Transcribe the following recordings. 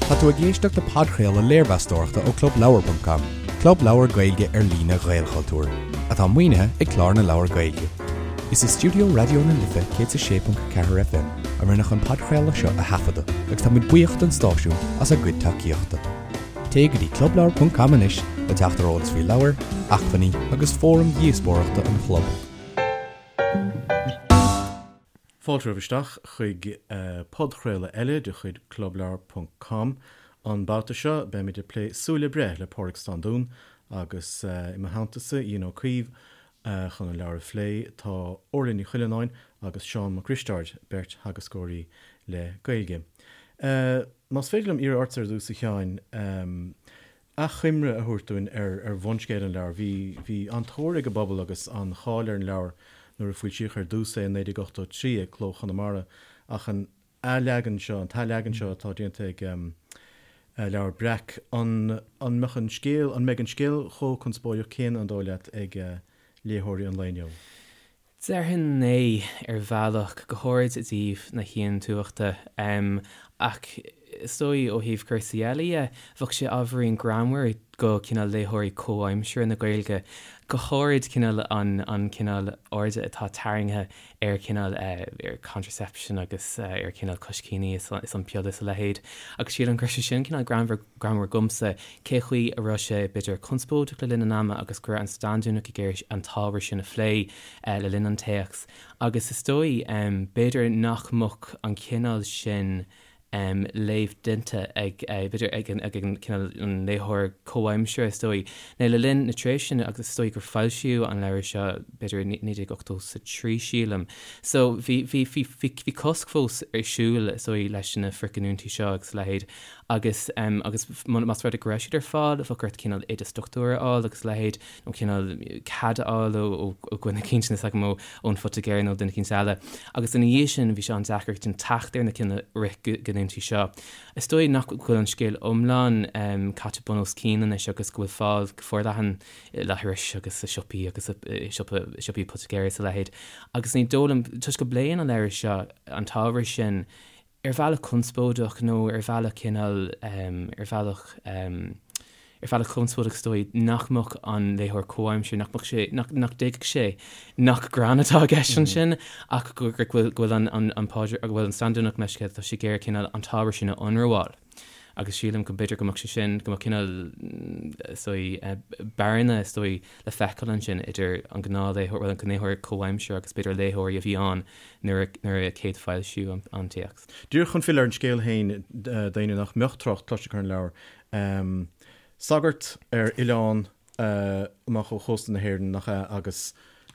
Tá tú ag éisteacht le podchraoladh léirmheastóireachta ó ClubLeabhar.com, club leabhar Gaeilge ar líne Ghaelchultúir, atá maoinithe ag Clár na Leabhar Gaeilge. Is i stiúideo Raidió na Life 106.4 FM a rinneadh an podchraoladh seo a thaifeadadh agus tá muid buíoch don stáisiún as a gcuid tacaíochta. Téigh go dtí clubleabhar.com anois le teacht ar eolas faoi leabhair, acmhainní agus fóraim dhíospóireachta an chlub. Fáilte romhaibh isteach chuig podchraoladh eile de chuid Clubleabhar ponc com. An babhta seo, beimid ag plé Súil le Breith le Pádraig Standún agus i mo theannta-sa, Ian Ó Caoimh, chun an leabhar a phlé, tá Orla Ní Chuilleanáin agus Seán Mac Risteaird, beirt theagascóirí le Gaeilge. Más féidir liom iarraidh ortsa ar dtús, a Sheáin, achoimre a thabhairt dúinn ar bhunscéal an leabhair. Bhí, bhí an-tóir ag an bpobal agus an-cháil ar an leabhar nuair a foilsíodh ar dtús é i 1983 ag Cló Chonamara ach an athleagan seo, an t-athleagan seo atá déanta ag Leabhar Breac, an, an mbeadh an scéal, an mbeidh an scéal chomh conspóideach céanna, an dóigh leat, ag léitheoirí an lae inniu? Déarfainn é, ar bhealach, go háirid i dtaobh na haontumhachta. Ach is dóigh, ó thaobh cúrsaí eile dhe, bheadh sé ábhairín greannmhar do cineál léitheoirí comhaimseartha na Gaeilge, go háirid cineál an an cineál airde atá tarraingthe ar cineál ar contraception agus ar cineál coiscíní is an piolla is a leithéid. Agus sílim go raibh sé sin cineál greannmhar greannmhar dhomsa, cé chaoi a raibh sé, b'fhéidir, conspóideach le linn an ama agus go raibh an Standúnach ag iarraidh an t-ábhar sin a phlé le linn an téacs. Agus is dóigh, b'fhéidir nach mbeadh an cineál sin léamh déanta ag, b'fhéidir, ag an, ag an cineál, an léitheoir comhaimseartha, is dóigh. Nó le linn na tréimhse sin, agus is dóigh gur foilsíodh an leabhar seo, b'fhéidir, i 1983, sílim. So, bhí, bhí, bhí, bhí, bhí cosc fós ar siúl, is dóigh, leis na frithghiniúintí seo agus a leithéid. Agus, agus más rud é go raibh siad ar fáil, bheadh ort cineál oideas dochtúra a fháil agus a leithéid, nó cineál cead a fháil ó, ó, ó dhuine eicínt, níl a fhios agam, ó, ón phoitigéir nó duine eicínt eile. Agus ina dhiaidh sin, bhí sé an-deacair teacht ar na cineál frithghiniúintí seo. Is dóigh nach bhfuil an scéal iomlán caite bun os cionn anois agus go bhfuil fáil go forleathan i leithris agus i siopaí agus i siopa, siopaí poitigéara is a leithéid. Agus ní dóigh liom, toisc go bpléann an leabhar seo an t-ábhar sin, ar bhealach conspóideach nó ar bhealach cineál, ar bhealach, ar bhealach conspóideach is dóigh, nach mbeadh an léitheoir comhaimseartha, nach mbeadh sé, nach, nach dtuigfeadh sé nach greann atá i gceist ansin ach go, go bhfuil, go bhfuil an, an, an Pádraig, go bhfuil an Standúnach meisce, tá sé ag iarraidh cineál an t-ábhar sin a ionramháil. Agus sílim go mb'fhéidir go mbeadh sé sin, go mbeadh cineál, is dóigh, bearna, is dóigh, le feiceáil ansin idir an gnáthléitheoir, bhuel, an léitheoir comhaimseartha agus b'fhéidir léitheoirí a bhí ann nuair a chéad foilsíodh an téacs. Díreach chun filleadh ar an scéal féin d'éinne nach mbeadh trácht cloiste acu ar an leabhar. Sagart ar oileán amach ó chósta na hÉireann, nach ea, agus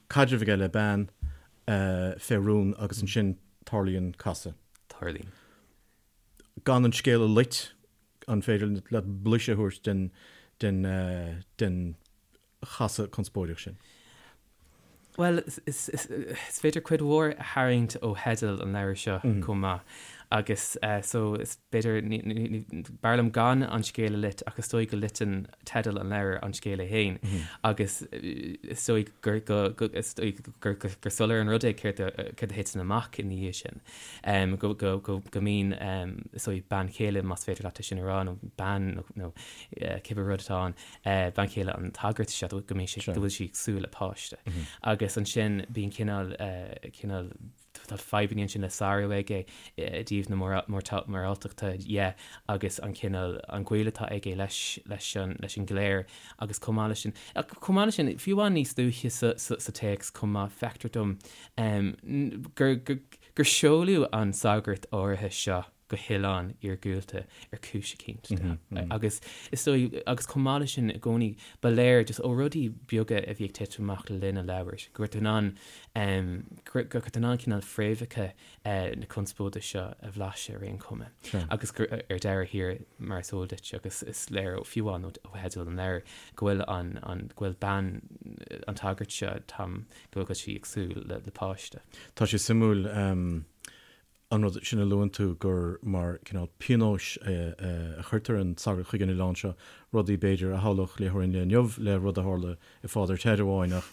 caidreamh aige le bean fé rún agus ansin tarlaíonn casadh. Tarlaíonn. Gan an scéal a loit, an féidir leat blaiseadh a thabhairt den den den chasadh conspóideach sin? Bhuel, is féidir cuid mhór a tharraingt ó theideal an leabhair seo chomh maith agus so is b'fhéidir, b'fhearr liom gan an scéal a loit ach is dóigh go loiteann teideal an leabhair an scéal é féin agus is dóigh gur is dóigh gur soiléir an rud é céard a thiteann amach ina dhiaidh sin. Go go mbíonn is dóigh bean chéile más féidir leat é sin a rá nó bean nó cibé rud atá ann, bean chéile an tsagairt seo, go mbíonn sé, go bhfuil sí ag súil le páiste. Agus ansin bíonn cineál, cineál, tá fadhbanna ansin le sárú aige i dtaobh na moráltachta dhe agus an cineál, an gaol atá aige leis, leis an, leis an gcléir agus chomh maith leis sin, chomh maith leis sin, fiú amháin níos luaithe sa, sa, sa téacs chomh maith, feictear dom gur, gur, gur seoladh an sagart áirithe seo go hoileán iargúlta ar chúis eicínt. Agus is dóigh, agus chomh maith leis sin i gcónaí, ba léir just ó rudaí beaga a bhí ag titim amach le linn an leabhair, go raibh tú in ann, go raibh tú in ann cineál fréamhacha na conspóide seo a bhlaiseadh ar aon chuma. Agus gur ar deireadh thiar, mar is eol duit, agus is léir fiú amháin ó theideal an leabhair, go bhfuil an, an, go bhfuil bean an tsagairt seo, Tom, go bhfuil sí ag súil le páiste. Tá sé suimiúil. An rud sin a luann tú, gur mar cineál pionóis a chuirtear an sagart chuig an oileán seo, rudaí, b'fhéidir, a shamhlódh léitheoir an lae inniu le rud a tharla i Father Ted amháin, ach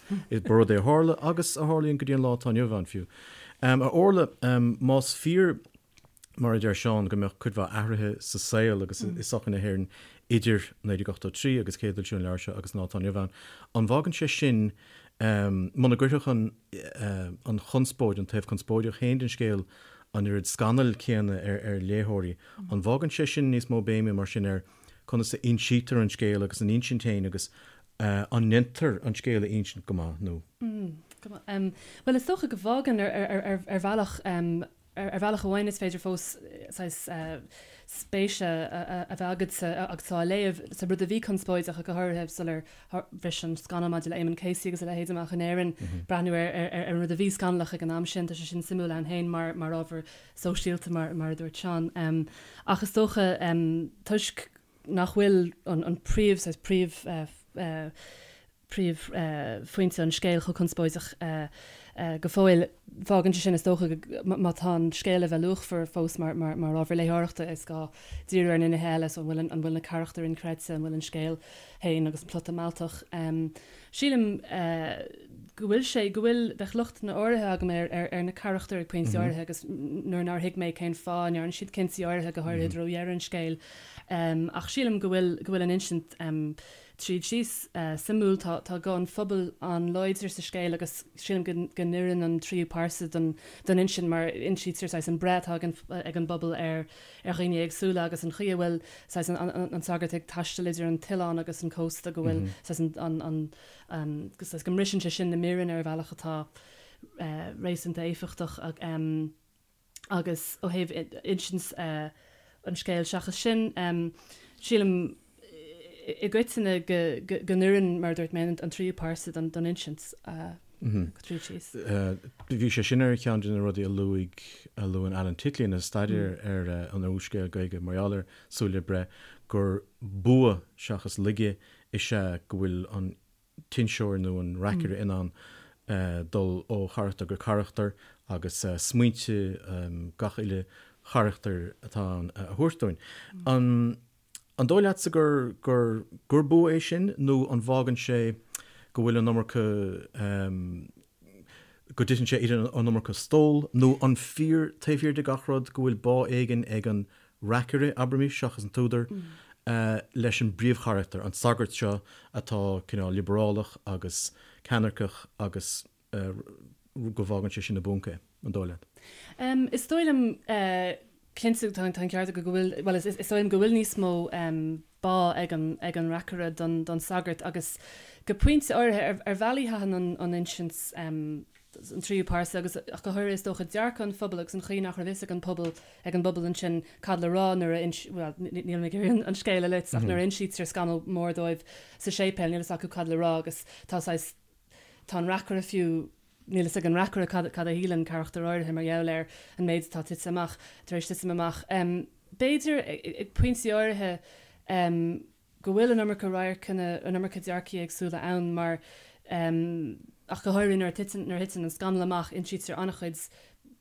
ba rud é a tharla agus a tharlaíonn go dtí an lá atá inniu ann fiú. A Orla, más fíor. Mar a deir Seán, go mbeadh cuid mhaith athruithe sa saol agus i sochaí na hÉireann idir 1983 agus céadfhoilsiú an leabhair seo agus an lá atá inniu ann. An bhfágann sé sin, muna gcuirfeadh an an chonspóid, an taobh conspóideach féin den scéal an oiread scannail céanna ar ar léitheoirí, an bhfágann sé sin níos mó béime mar sin ar conas a insítear an scéal agus an insint féin agus an ndéantar an scéal a insint go maith nó? Go maith. Bhuel, is dócha go bhfágann ar ar bhealach. Ar bhealach amháin is féidir fós saghas spéise a bheith agatsa agus tú á léamh sa rud a bhí conspóideach, go háirithe sular bhris an scannal maidir le Eamonn Casey agus a leithéid amach in Éirinn, breathnú ar an rud a bhí scannalach ag an am sin. Tá sé sin suimiúil ann féin mar ábhar sóisialta, mar a dúirt Seán. Ach is dócha, toisc nach bhfuil an príomh, saghas príomh, príomhphointe an scéil chomh conspóideach go fóill. Fágann sé sin, is dócha, má tá an scéal le bheith luachmhar fós mar ábhar léitheoireachta, is gá díriú ar na nithe eile, so an bhfuil an bhfuil na carachtair inchreidte, an bhfuil an scéal féin agus an plota mealltach. Sílim go bhfuil sé, go bhfuil, bheadh lochtanna áirithe agam ar ar na carachtair ag pointí áirithe agus nuair nár thuig mé cén fáth a ndearna siad cinntí áirithe, go háirithe i dtreo dheireadh an scéil. Ach sílim go bhfuil, go bhfuil an insint Tríd síos, suimiúil, tá tá guth an phobail an-láidir sa scéal agus sílim go go n-oireann an tríú pearsa don don insint mar insítear saghas an breith atá ag an ag an bpobal ar ar dhaoine éagsúla agus an chaoi a bhfuil saghas an an an sagart ag taisteal idir an t-oileán agus an cósta go bhfuil saghas an an an an saghas go mbriseann sé sin na míreanna ar bhealach atá réasúnta éifeachtach. Agus ó thaobh insint an scéil seachas sin, sílim i gcoitinne go n-oireann, mar a dúirt mé, an tríú pearsa don insint tríd síos. Bhí sé sin ar cheann de na rudaí a luaigh, a luann Alan Titley ina staidéar ar an úrscéal Gaeilge mar gheall ar Súil le Breith, gur bua seachas laige is ea go bhfuil an t-inseoir nó an reacaire in ann dul ó charachtar go carachtar agus smaointe gach uile charachtar atá ann a thabhairt dúinn. An dóigh leatsa gur gur gur bua é sin nó an bhfágann sé go bhfuil an iomarca go dtiteann sé idir an iomarca stól nó an fíor taobh thiar de gach rud go bhfuil bá éigin ag an reacaire, abraimis, seachas an t-údar, leis an bpríomhcharachtar, an sagart seo atá cineál liobrálach agus ceannairceach agus go bhfágann sé sin i bponc é, an dóigh leat? Is dóigh liom, cinnte, tá an ceart agat go bhfuil, bhuel, is dóigh liom go bhfuil níos mó bá ag an, ag an reacaire don, don sagart agus go pointe áirithe, ar, ar bhealaí thaitin an, an insint, an tríú pearsa agus ach go háirithe is dócha dearcadh an phobail agus an chaoi nach raibh fhios ag an pobal ag an bpobal ansin cad le rá nuair a ins bhuel níl mé ag iarraidh an scéal a loit ach nuair a insítear scannal mór dóibh sa séipéal níl fhios acu cad le rá agus tá saghas tá an reacaire fiú níl fhios ag an reacaire cad cad a shíleann carachtar áirithe mar gheall ar an méid atá tite amach tar éis titim amach. B'fhéidir ag pointí áirithe go bhfuil an iomarca radharcanna, an iomarca dearcaí éagsúla ann mar, ach go háirithe nuair a titeann, nuair a thiteann an scannal amach, insítear an-chuid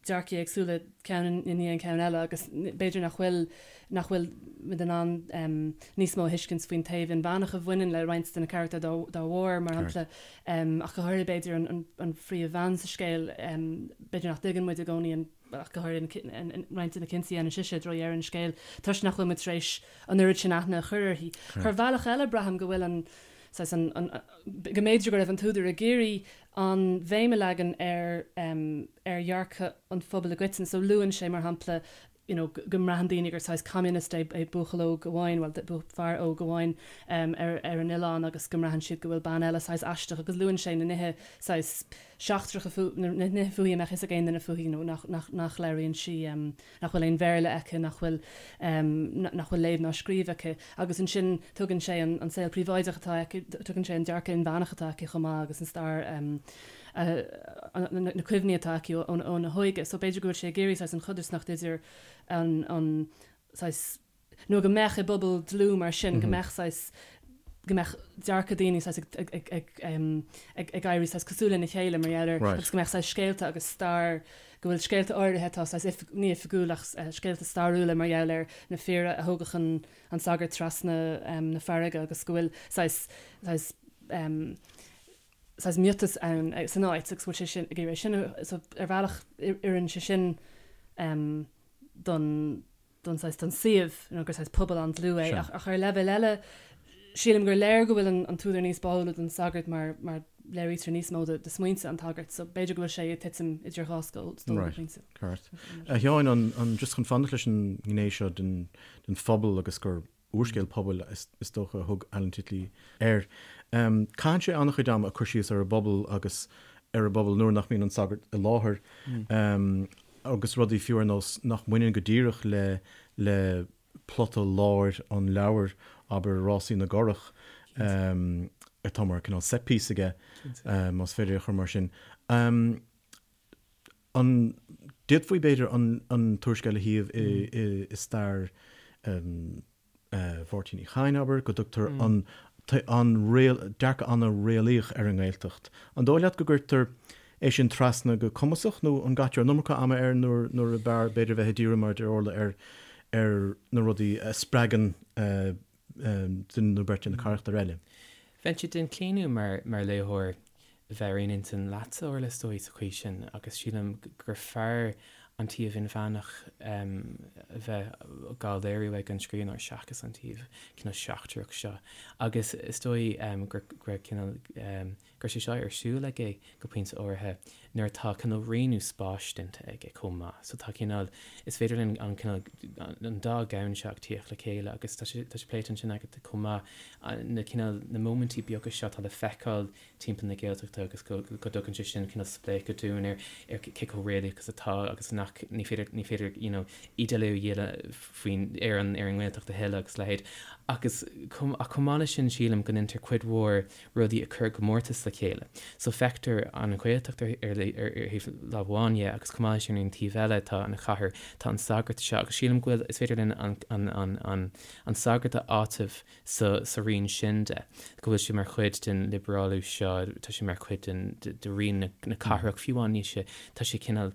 dearcaí éagsúla, ceann i ndiaidh an ceann eile agus b'fhéidir nach bhfuil, nach bhfuil muid in ann níos mó a thuiscint faoin taobh inmheánach a bhaineann le roinnt de na carachtair dá, dá bharr, mar shampla, ach go háirithe b'fhéidir an, an, an phríomhbhean sa scéal, b'fhéidir nach dtuigeann muid i gcónaí an. ach go háirithe roinnt de na cinntí a dhéanann sise i dtreo dheireadh an scéil, toisc nach bhfuil muid tar éis an oiread sin aithne a chur uirthi. Ar bhealach eile, braithim go bhfuil an, saghas, an, an, go mb'fhéidir go raibh an t-údar ag iarraidh an bhéim a leagan ar, ar dhearcadh an phobail i gcoitinne. So luann sé, mar shampla, you know, go mbraitheann daoine gur saghas communist é, é buachaill óg amháin, bhuel, fear óg amháin ar, ar an oileán agus go mbraitheann siad go bhfuil bean eile saghas aisteach agus luann sé na nithe saghas seachtracha fúithi, na nithe fúithi a mbeadh fhios ag aon duine fúithi, nó nach, nach, nach labhraíonn sí, nach bhfuil aon Bhéarla aici, nach bhfuil, nach bhfuil léamh ná scríobh aici. Agus ansin tugann sé an, an saol príobháideach atá aici, tugann sé an dearcadh inmheánach atá aici chomh maith agus an stair, na cuimhní atá aici óna hóige. So b'fhéidir go bhfuil sé ag iarraidh saghas an chodarsnacht idir an, an saghas, nó go mbeadh i bpobal dlúth mar sin, go mbeadh saghas, go mbeadh dearcadh daoine saghas ag, ag, ag, ag, ag éirí saghas cosúil lena chéile mar gheall air, agus go mbeadh saghas scéalta agus stair, go bhfuil scéalta áirithe atá saghas oif, ní oifigiúil ach scéalta stairiúla mar gheall ar na fir a thógadh an, an sagart trasna na farraige agus go bhfuil saghas, saghas, saghas miotas ann san áit agus go bhfuil sé sin ag iarraidh sin a, so ar bhealach oireann sé sin. don don saghas don suíomh, you know, gur saghas pobal an-dlúth é ach ach ar leibhéal eile sílim gur léir go bhfuil an an t-údar níos báúla don sagart mar mar léirítear níos mó de de smaointe an tsagairt so b'fhéidir go bhfuil sé ag titim idir dhá stól go Right, pointe. ceart. A Sheáin, an an just chun fanacht leis an ngné seo den den phobal agus gur úrscéal pobail is dócha a thug Alan Titley air. Caitheann sé an-chuid ama ag cur síos ar an bpobal agus ar an bpobal nuair nach mbíonn an sagart i láthair agus rudaí fiú ar nós nach mbaineann go díreach le le plota láir an leabhair, abair Rásaí na gCurach, atá mar cineál set piece aige, más féidir é a chur mar sin. An d'fhéadfaí, b'fhéidir, an t-úrscéal a shuíomh i stair Mháirtín Uí Chadhain, abair, go dtugtar an dearcadh an-réalaíoch ar an nGaeltacht. An dóigh leat go gcuirtear é sin trasna go cumasach nó an gcaitear an iomarca ama air nuair ab fhearr, b'fhéidir, bheith ag díriú, mar a deir Orla, ar na rudaí a spreagann duine nó beirt de na carachtair eile. Bheinnse den chlaonadh mar léitheoir bheith ar aon intinn leatsa, Orla, is dóigh, sa chaoi sin, agus sílim gur fearr an taobh inmheánach a bheith dhá léiriú ag an scríbhneoir seachas an taobh cineál seachtrach seo. Agus is dóigh gur cineál go raibh sé seo ar siúl aige go pointe áirithe nuair atá cineál rianú spáis déanta aige chomh maith. So tá cineál, is féidir linn an cineál, an dá dhomhan seo ag tíocht le chéile agus tá sé, tá sé pléite ansin agat chomh maith, na cineál, na móimintí beaga seo atá le feiceáil timpeall na Gaeltachta agus go, go dtugann sé sin cineál spléachadh dúinn ar, ar cé chomh réalaíoch is atá agus nach, ní féidir, ní féidir you know ídéalú a dhéanamh faoin, ar an, ar an nGaeltacht a thuilleadh agus a leithéid. Agus chomh, ach chomh maith leis sin sílim go ndéantar cuid mhór rudaí a chur i gcomórtas le chéile. So feictear an Ghaeltacht ar thaobh lámh amháin dhe agus chomh maith leis sin ar an taobh eile tá an chathair, tá an sagart seo agus sílim go bhfuil, is féidir linn an, an, an, an, an sagart a áiteamh sa, sa rian sin de, go bhfuil sé mar chuid den liobrálú seo, tá sé mar chuid den, de, de rian na, na cathrach, fiú amháin níl sé, tá sé cineál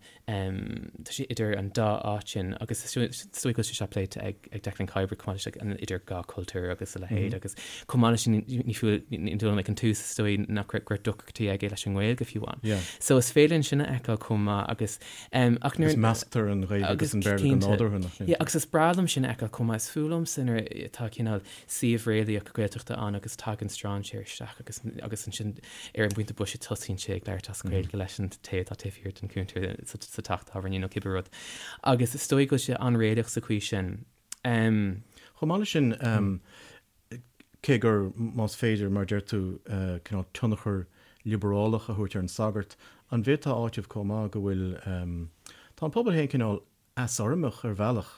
Tá sé idir an dá áit sin agus is dóigh go bhfuil sé seo pléite ag Declan Kiberd chomh maith leis an idir dhá chultúr agus a leithéid agus chomh maith leis sin ní fiú ní dóigh liom ag an tús is dóigh nach raibh go raibh deacrachtaí aige leis an nGaeilge fiú amháin. So is féidir linn sin a fheiceáil chomh maith agus ach nuair Agus measctar an Ghaeilge agus an Béarla go nádúrtha nach sin. Yeah agus is breá liom sin a fheiceáil chomh maith. Is fuath liomsa nuair atá cineál suíomh réalaíoch Gaeltachta ann agus tagann strainséir isteach agus agus ansin ar an bpointe boise tosaíonn sé ag labhairt as Gaeilge leis an té atá taobh thiar den chuntar sa teach tábhairne nó cibé rud. Agus is dóigh go bhfuil sé an-réalaíoch sa chaoi sin. Chomh maith leis sin, cé gur, más féidir, mar a deir tú, cineál tionchar liobrálach a thabhairt ar an sagart, an bhféadfá a áiteamh chomh maith go bhfuil, tá an pobal féin cineál easurramach ar bhealach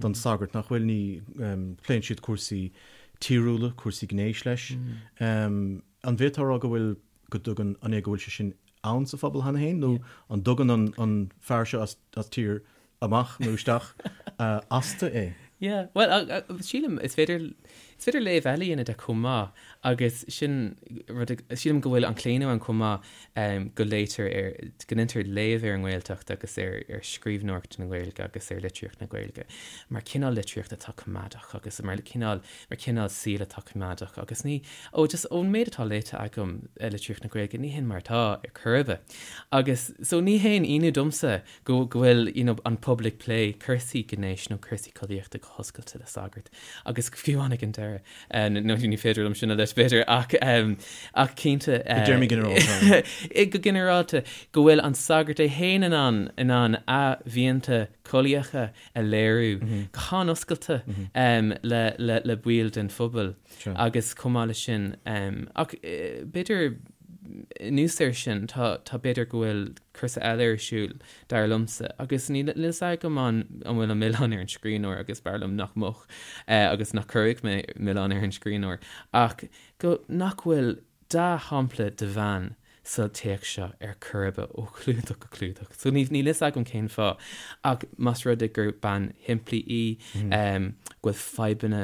don sagart, nach bhfuil? Ní pléann siad cúrsaí tíriúla, cúrsaí gnéis leis. An bhféadfá a rá go bhfuil, go dtugann, an é go bhfuil sé sin ann sa phobal cheana féin nó an dtugann an an fear seo as as tír amach nó isteach astu é? Yeah, bhuel, sílim, is féidir, is féidir léamh eile a dhéanamh de chomh maith agus sin rud, sílim go bhfuil an claonadh ann chomh maith go léitear ar, go ndéantar léamh ar an nGaeltacht agus ar, ar scríbhneoireacht na Gaeilge agus ar litríocht na Gaeilge mar cineál litríocht atá coimeádach agus mar cineál, mar chineál saoil atá coimeádach agus ní, ó just ón méid atá léite agam ar litríocht na Gaeilge ní hin mar atá ar chor ar bith. Agus so ní haon ionadh domsa go go bhfuil you know an pobal ag plé cúrsaí gnéis nó cúrsaí collaíochta go hoscailte le sagart agus fiú amháin ag an deireadh nó ní féidir liom sin a leis b'fhéidir ach ach cinnte I dtéarmaí ginearálta. go ginearálta go bhfuil an sagart é féin in ann in ann a mhianta collaíocha a léiriú go han-oscailte le le le baill den phobal agus chomh maith leis sin ach b'fhéidir anuas air sin tá tá b'fhéidir go bhfuil cúrsa eile ar siúl, dar liomsa, agus níl a fhios agam an bhfuil an milleán ar an scríbhneoir agus b'fhearr liom nach mbeadh agus nach gcuirfeadh mé milleán ar an scríbhneoir, ach go nach bhfuil dea-shampla de bhean sa téacs seo ar chor ar bith ó chlúdach go clúdach. So níl a fhios agam cén fáth, ach más rud é gur bean shimplí í, go bhfuil fadhbanna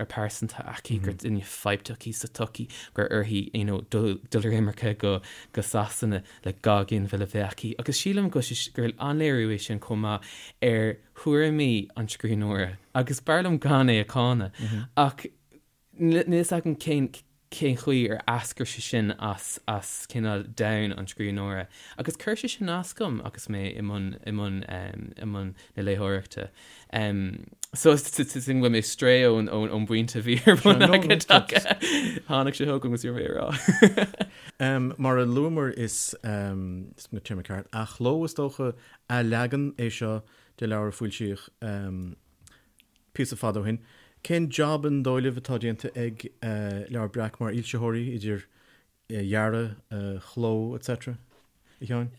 pearsanta aici, gur duine fadhbach í sa tsochaí, gur uirthi you know dul ar imirce go Sasana, le dhá ghinmhilleadh a bheith aici, agus sílim go gur an-léiriú é sin chomh maith ar thuairimí an scríbhneora, agus b'fhearr liom gan é a cháineadh, ach níl a fhios agam cén. cén chaoi ar eascair sé sin as as cineál domhan an scríbhneora. Agus chuir sé sin as dom agus mé i mbun i mbun i mbun na léitheoireachta. So sin go bhfuil mé ag strae ón ón ón bpointe a bhí ar bun agat ach tháinig sé chugam agus bhí mé a rá. Mar a luamar is is an téarma ceart, athchló is dócha, athleagan é seo de leabhar a foilsíodh píosa fada ó shin. Cén jab an dóigh libh atá déanta ag Leabhar Breac mar fhoilsitheoirí, idir dhearadh, chló, etc. A Sheáin?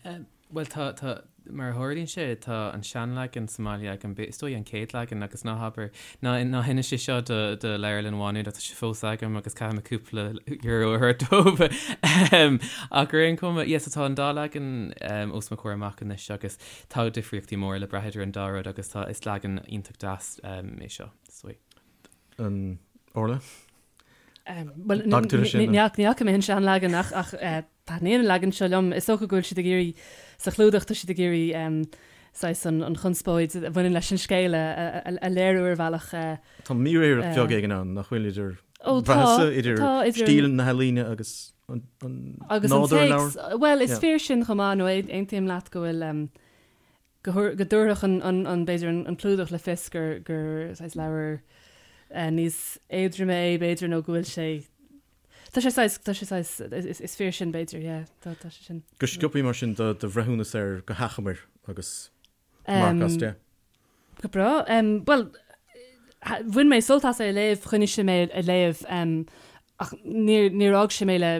Bhuel, tá, tá, mar a tharlaíonn sé, tá an seanleagan sa mbaile agam, is dóigh an chéad leagan agus ná habair, ná, ná hinis é seo do, do Leabharlann Mhá Nuad ach tá sé fós agam agus caithfidh mé cúpla euro a thabhairt dóibh. Ach ar aon chuma, yes, tá an dá leagan os mo chomhair amach anois agus Tá difríochtaí móra le brath idir an dá rud agus tá, is leagan iontach deas é seo, is dóigh. An Orla? Bhuel, ní fhaca mé an seanleagan ach ach taitníonn an leagan seo liom. Is dócha go bhfuil siad ag iarraidh, sa chlúdach, tá siad ag iarraidh saghas an chonspóid a bhaineann leis an scéal a léiriú ar bhealach. Tá míréireacht bheag éigin ann, nach bhfuil, idir idir stíl na healaíne agus an nádúr an leabhair. Bhuel, is fíor sin chomh maith, nó aontaím leat go bhfuil, go dtabharfadh an, b'fhéidir, an clúdach le fios gur saghas leabhar níos éadroime é, b'fhéidir, nó go bhfuil sé, tá sé saghas, tá sé saghas, is fíor sin, b'fhéidir, yeah, tá sé sin. Go sciobtha mar sin do bhreithiúnas air go hachomair agus marc as 10. Go breá. Bhuel, bhain mé sult as é a léamh, choinnigh sé mé ag léamh, ach níor, níor fhág sé mé le,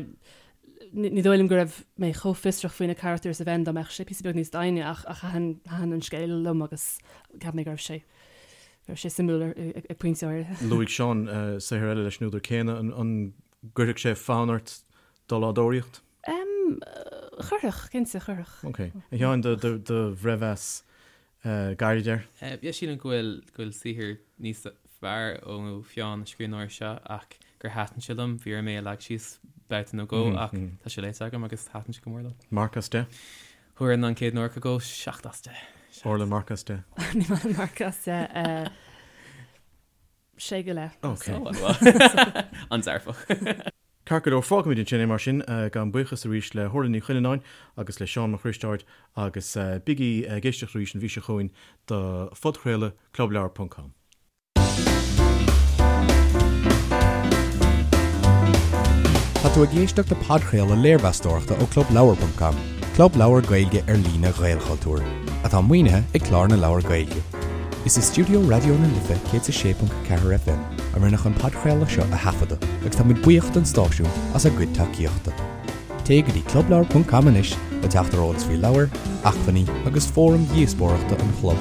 ní dóigh liom go raibh mé chomh fiosrach faoi na carachtair is a bheinn dá mbeadh sé píosa beag níos doimhne ach, ach thaitin, thaitin an scéal liom agus cheap mé go raibh sé, go raibh sé suimiúil ag pointe áirithe. Luaigh Seán saothar eile leis an údar céanna, an, an gcuirfeadh sé fonn ort dul á dtóraíocht? Chuirfeadh, cinnte, chuirfeadh. Ok. A Sheáin, do, do, do bhreithmheas gairid air? Yeah, sílim go bhfuil, go bhfuil saothar níos fearr ó pheann an scríbhneora seo ach gur thaitin sé liom. Bhí orm é a leagan síos babhta nó dhó ach tá sé léite agam agus thaitin sé go mór liom. Marc as 10? Thabharfainn an chéad 90 go 7 as 10. Orla, marc as 10? Ní maith liom marc as 10. Sé go leith. Ok. An-dearfach. Ceart go leor, fágfaimid ansin é mar sin. Gabhaim buíochas arís le hOrla Ní Chuilleanáin agus le Seán Mac Risteaird agus bígí ag éisteacht arís an mhí seo chugainn do phodchraoladh Clubleabhar ponc com. Tá tú ag éisteacht le podchraoladh léirmheastóireachta ó Clubleabhar ponc com, club leabhar Gaeilge ar líne Ghaelchultúir, atá maoinithe ag Clár na Leabhar Gaeilge. Is i stiúideo Raidió na Life 106.4 FM a rinneadh an podchraoladh seo a thaifeadadh agus táimid buíoch don stáisiún as a gcuid tacaíochta. Téigh go dtí clubleabhar ponc com anois le teacht ar eolas faoi leabhair, acmhainní agus fóraim dhíospóireachta an chlub.